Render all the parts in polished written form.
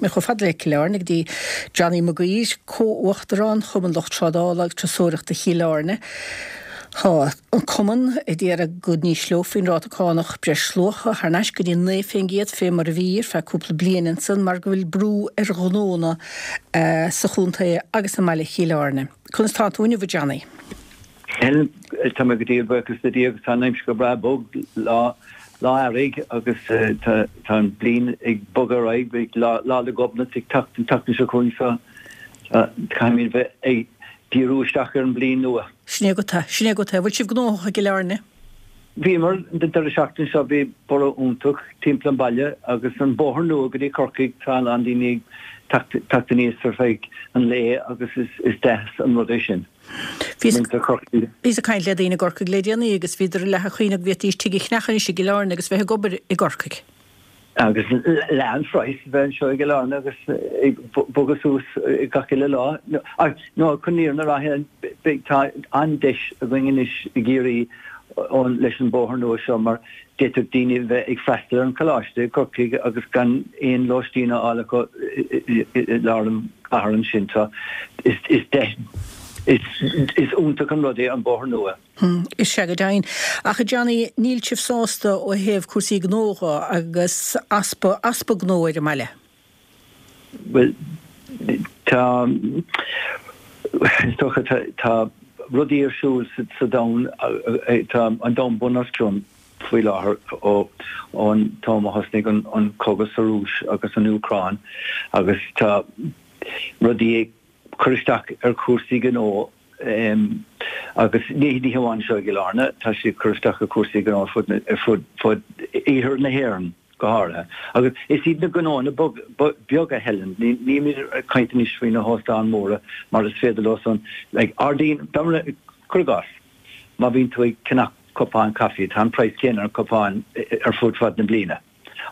Chomh fada le Cill Airne go dtí Johnny Mac Uidhir, Comh-Uachtarán Chumann Lucht Trádála agus Turasóireachta Chill Airne. Tá an Cumann ag iarraidh go n-ísleofaí an ráta cánach breisluacha thar n-ais go dtí 9% fé mar a bhí ar feadh cúpla bliain ansan mar go bhfuil brú ar ghnónna sa chontae agus i mbaile Chill Airne. Conas tá tú inniu a Johnny? Helen, Tá mé go diail, buíochas le Dia agus tá an aimsir go breá bog, lá lá earraigh agus tá an bliain ag bogadh ar aghaidh, beidh Lá 'le Gobnait ag teacht an tseachtain seo chugainn so caithfimid bheith ag díriú isteach ar an bliain nua. Sin é agat é, sin é agat é. Bhfuil sibh gnóthach i gCill Airne? Bhíomar, an deireadh seachtaine seo bhí borradh iontach timpeall an baile agus an bóthar nua go dtí Corcaigh, tá a lán daoine ag teacht aníos ar feadh an lae agus is deas an rud é sin. Bhíos ag caint le daoine i gCorcaigh le déanaí agus bhíodar leath ag caoineadh go bhféadfaidís tigh a cheannach anois i gCill Airne agus bheith ag obair i gCorcaigh. Agus leath an phraghas a bheith anseo i gCill Airne agus ag bogadh suas gach uile lá. Nó chun an fhírinne a rá, tá an-deis againn anois i gCiarraí leis an bóthar nua seo mar D'fhéadfadh daoine bheith ag freastal ar an choláiste i gCorcaigh agus gan aon lóistín a fháil acu i lár an chathair ansin. So is deis, is iontach an rud é an bóthar nua. Is ea go deimhin. Ach a Johnny, níl sibh sásta ó thaobh cúrsaí gnó dho agus easpa, easpa gnó ar an mbaile? Bhuel, tá, is dócha, tá rudaí ar siúl sa domhan, tá an domhan bun os cionn faoi láthair ó ón t-am a thosnaigh an cogadh sa Rúis agus an Úcráin agus tá rudaí ag cur isteach ar chúrsaí gnó agus ní hamháin anseo i gCill Airne, tá sé ag cur isteach ar chúrsaí gnó ar fud ar fud fud iarthar na hÉireann go háirithe. Agus is iad na gnóanna beaga, Helen, nílimid ag caint anois faoi na hóstáin mhóra mar is féidir leo san, like, ardaíonn, cuir i gcás, má bhíonn tú ag ceannach cupán caife, tá an praghas céanna ar an cupán ar fud fad na bliana.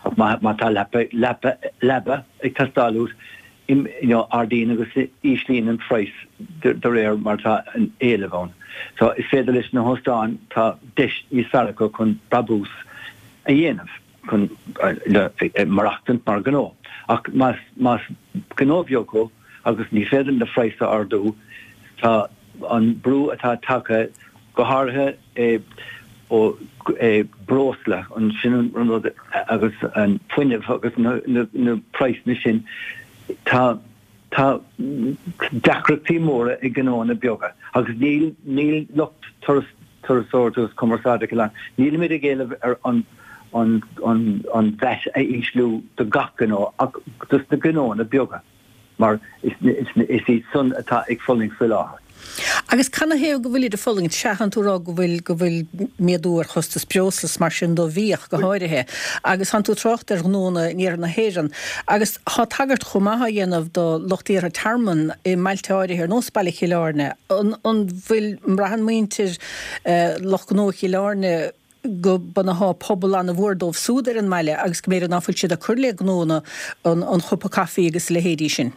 Ach má tá leapa, leapa, leaba ag teastáil uait, you know, ardaíonn agus íslíonn an praghas de réir mar atá an éileamh ann. So is féidir leis na hóstáin, tá deis níos fearr acu chun brabús a dhéanamh, chun maireachtaint mar ghnó. Ach más, más gnó beag thú agus ní féidir na praghas a ardú, tá an brú atá tagtha, go háirithe ó breosla, an sin an rud agus an fuinneamh agus na praghsanna sin, tá tá deacrachtaí móra ag gnóanna beaga agus níl níl lucht turas turasóireachta agus cumarsáide Chill Airne, nílimid ag éileamh ar an an an an VAT a ísliú do gach gnó ach dos na gnóanna beaga. mar is iad san atá ag fulaingt faoi láthair. Agus canathaobh go bhfuilid ag fulaingt? Sea, tánn tú ag rá go bhfuil, go bhfuil méadú ar chostas breosla is mar sin do bhí ach go háirithe. Agus tánn tú ag trácht ar ghnónna in iarthar na hÉireann. Agus tá tagairt chomh maith á dhéanamh do lucht iarrtha tearmann i mbailte áirithe ar nós Baile Chill Airne. An, an bhfuil, an mbraitheann muintir lucht gnó Chill Airne, go mbunófá pobal an-mhór dóibh súd ar an mbaile agus go mb'fhéidir ná fuil siad ag cur le gnónna an chupa caife agus a leithéidí sin.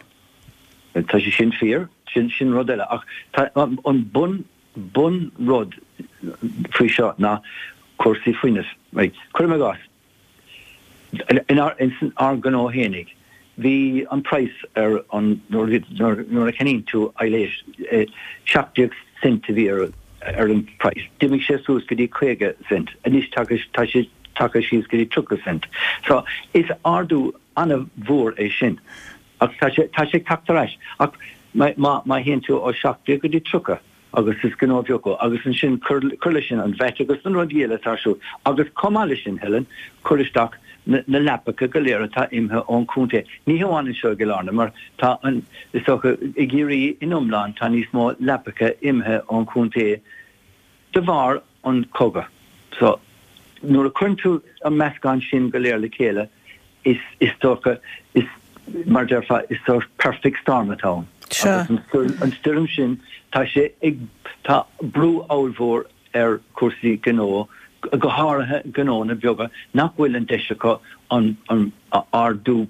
Tá sé sin fíor, sin sin rud eile. Ach tá an bun bun rud faoi seo ná cúrsaí fuinnimh. Right. Cuirim i gcás, Inár ár ngnó fhéinig, bhí an praghas ar an nuair nuair a cheannaíonn tú aibhléis, 17 cent a bhí ar ar an praghas. D'imigh sé suas go dtí 50 cent. Anois tá tá sé tagtha síos go dtí 30 cent. So is ardú an-mhór é sin. Ach tá sé tá sé ag teacht ar ais. Ach má má théann tú ó 17 go dtí 30, agus is gnó beag thú, agus ansin cuir leis sin an VAT agus na rudaí eile atá ar siúl, agus chomh maith leis sin, Helen, cuir isteach na leapacha go léir atá imithe ón chontae, ní hamháin anseo i gCill Airne, mar tá an, is dócha, i gCiarraí in iomlán, tá níos mó leapacha imithe ón chontae de bharr an chogadh. So, nuair a chuireann tú an meascán sin go léir le chéile, is, is dócha, is, mar a déarfá, is sórt perfect storm atá ann. Sea. Agus an stoirm sin, tá sé ag, tá brú ollmhór ar chúrsaí gnó, go háirithe gnónna beaga nach bhfuil an deis acu an, an ardú,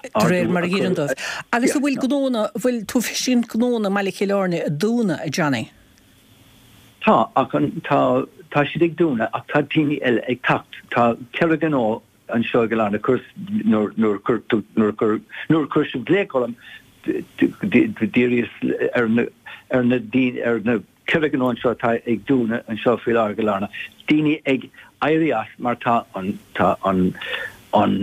De réir mar a dh'iarrann dóibh. Agus an bhfuil gnónna, an bhfuil tú ag feiscint gnónna i mBaile Chill Airne ag dúnadh, a Johnny? Tá, ach an, tá, tá siad ag dúnadh ach tá daoine eile ag teacht. Tá ceithre ghnó. anseo i gCill Airne, chuir, nuair, nuair a chuir tú, nuair a chuir, nuair a chuir sibh glaoch orm, d'iarraíos ar na, ar na daoine, ar na 4 ghnó anseo atá ag dúnadh anseo faoi láthair i gCill Airne, daoine ag éirí as mar tá an, tá an, an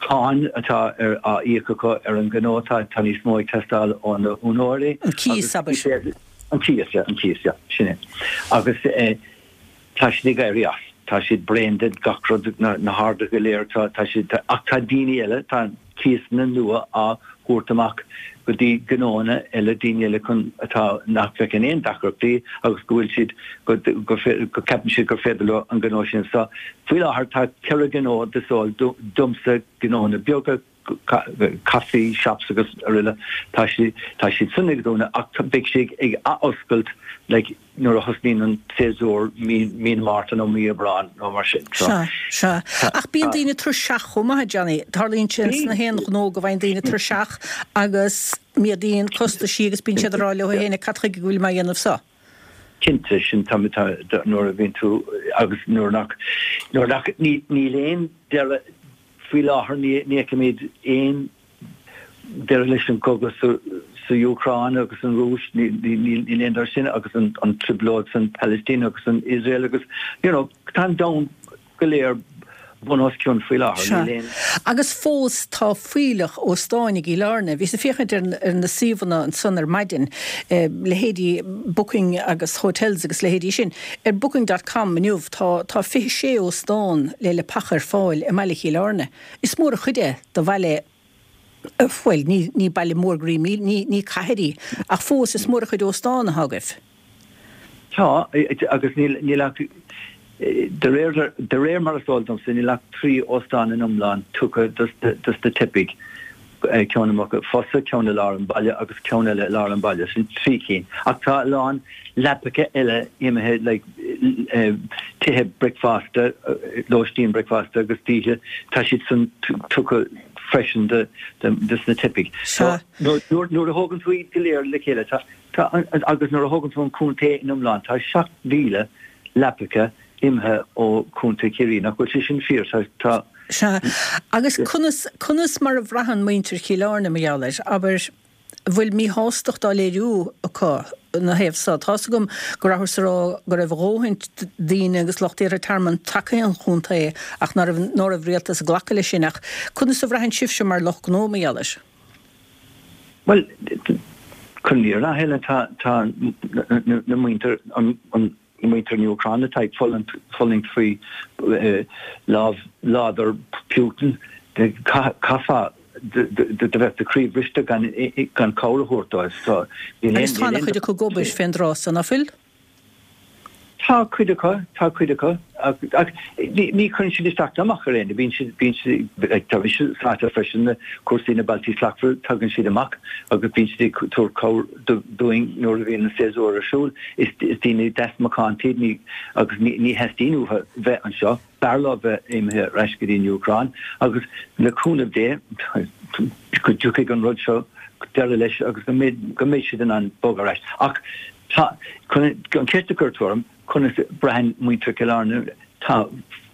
cáin atá ar, á íoc acu ar an ghnó, tá, tá níos mó ag teastáil ó na húinéirí. An cíos, abair. An cíos, yeah, an cíos, yeah, sin é. Agus eh, tá siad ag éirí as, tá siad bréan de gach rud, na, na harduithe go léir, tá, tá siad, tá, ach tá daoine eile, tá cíosanna nua á thabhairt amach go dtí gnóanna eile, daoine eile chun, atá, nach bhfeiceann aon deacrachtaí agus go bhfuil siad, go, go, go ceapann siad gur féidir leo an gnó sin. So, faoi láthair tá 4 ghnó is eol domsa, gnóanna beaga, caife shops agus araile, tá siad, tá siad san ag dúnadh ach beidh siad ag athoscailt like nuair a thosnaíonn an séasúr mí, mí na Márta nó mí Aibreán nó mar sin. So, Sea, sea. Ach bíonn daoine tuirseach chomh maith, a Johnny. Tarlaíonn sé sna haon ghnó go bhfaigheann daoine tuirseach agus méadaíonn costaisí agus bíonn siad ag rá leo féin cad chuige go bhfuil mé á dhéanamh seo? Cinnte, sin tá, tá, nuair a bhíonn tú agus nuair nach, nuair nach, ní, níl aon deireadh, Faoi láthair ní fheicimid aon deireadh leis an gcogadh sa Úcráin agus an Rúis, níl aon deireadh sin agus an trioblóid san Palaistín agus san Iosrael agus you know tá an domhan go léir bun os cionn faoi láthair. Níl aon. Agus fós tá fuílleach óstáin i gCill Airne. Bhíos ag féachaint ar na suíomhanna ansan ar maidin, leithéidí Booking agus Hotels agus leithéidí sin. Ar Booking dot com inniu tá tá 26 óstán le leapacha ar fáil i mbaile Chill Airne. Is mór an chuid é do bhaile, bhuel, ní ní baile mór go raibh ní ní cathair í, ach fós is mór an chuid óstán atá agaibh. Tá, agus níl níl ach, de réir de réir mar is eol domsa, níl ach 3 óstán in iomlán tugtha dos dos na teifigh. ceann i Muc Fosa, ceann i lár an bhaile agus ceann eile i lár an bhaile. Sin trí cinn. Ach tá a lán leapacha eile imithe like tithe bricfeasta, lóistín bricfeasta agus d'oíche, tá siad san tugtha freisin do dos na teifigh. So nuair a thógann tú iad go léir le chéile, tá tá agus nuair a thógann tú an contae in iomlán, tá 7,000 leapacha imithe ó Chontae Chiarraí. Nach bhfuil sé sin fíor? Tá. Sea. Agus conas, conas mar a bhraitheann muintir Chill Airne mar gheall air? Abair, an bhfuil míshástacht á léiriú acu ina thaobh so? Tá's agam go rabhthas ag rá go raibh a dhóthain daoine agus lucht iarrtha tearmainn tagtha an chontae ach ná raibh, ná raibh rialtas ag glacadh leis sin. Ach conas a bhraitheann sibhse mar lucht gnó mar gheall air? Bhuel, chun an fhírinne a Helen, tá, tá na muintir, an, an, Muintir na Úcráine atá ag fulaingt faoi lámh láidir Putin, chaithfeá do bheith do chroí bhriste gan cabhair a thabhairt dóibh. Agus tá ana-chuid acu ag obair fén dtráth so, ná fuil? Tá cuid acu, tá cuid acu. Ach ní chuireann siad isteach ná amach ar éinne. Bíonn siad, bíonn siad, tá mise sáite freisin na cúrsaí na Bealtaí Slachtmhara, tagann siad amach agus bíonn siad ag tabhairt cabhair dúinn nuair a bhíonn an séasúr ar siúl. Is daoine deas macánta iad ní, agus ní theastaíonn uathu bheith anseo. B'fhearr leo bheith imithe ar ais go dtí an Úcráin agus le cúnamh Dé go dtiocfaidh an rud seo deireadh leis agus go mbeidh, go mbeidh siad in ann bogadh ar ais. Ach tá, chun an cheist a chuir tú orm, conas a braitheann muintir Chill Airne, tá,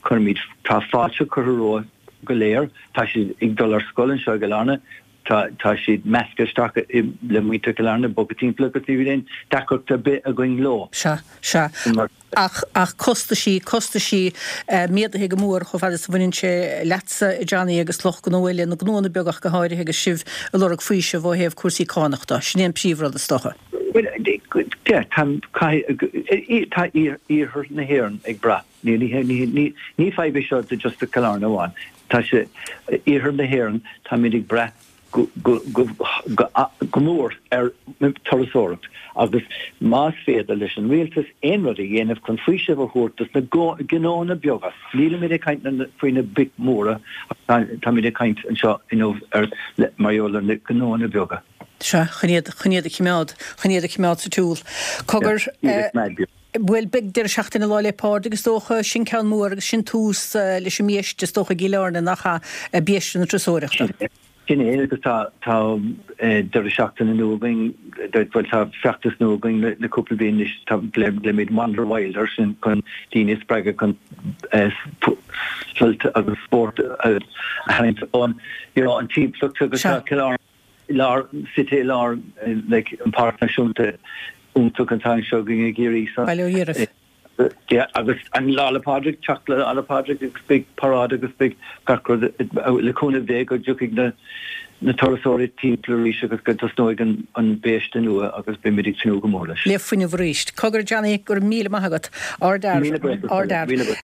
cuirimid, tá fáilte curtha rompu go léir, tá siad ag dul ar scoil anseo i gCill Airne, Tá, tá siad measctha isteach le muintir Chill Airne, bogtha timpeall agus ní bhíonn aon deacracht ar bith againn leo. Sea, sea. Ach, ach costaisí, costaisí méadaithe go mór chomh fada is a bhaineann sé leatsa, a Johnny, agus lucht gnó eile, na gnóanna beaga ach go háirithe agus sibh ag lorg faoiseamh ó thaobh cúrsaí cánach de. Sin é an príomhrud, is dócha. Bhuel, yeah, tá, caithfidh, tá iarthar na hÉireann ag brath. Ní, ní, ní, ní fadhb é seo do just do Chill Airne amháin. Tá sé, iarthar na hÉireann, táimid ag brath go, go, go, go, go mór ar turasóireacht agus más féidir leis an rialtas aon rud a dhéanamh chun faoiseamh a thabhairt dos na gnóanna beaga, nílimid ag caint faoi na boic mhóra ach táimid ag caint anseo inniu ar, mar gheall ar na gnóanna beaga. Sea, chun iad, chun iad a chimeád, chun iad a chimeád sa tsiúl. Cogar, eh. Bhuel, beidh deireadh seachtaine Lá 'le Pádraig is dócha, sin ceann mór agus sin tús leis an mbiaiste is dócha i gCill Airne, nach ea, biaiste na turasóireachta. Sin é agus tá tá deireadh seachtaine nua againn, bhuel tá feachtas nua againn le cúpla bliain anois, tá glaoimid Wander Wild air sin chun daoine a spreagadh chun sult agus spórt a tharraingt ón you know an timpeallacht agus tá Cill Airne i lár, suite i lár like an Páirc Náisiúnta iontach atá anseo againn i gCiarraí so. Baile Ó Dhíreach. Yeah, agus an Lá 'le Pádraig, teacht le Lá 'le Pádraig agus beidh paráid agus beidh gach rud le cúnamh Dé go dtiocfaidh na na turasóirí timpeall arís agus go dtosnóidh an an biaiste nua agus beimid ag tnúth go mór leis. Le fuinneamh arís. Cogar Johnny, go raibh míle maith agat. Ardfhear. Míle buíochas. Ardfhear. Míle buíochas.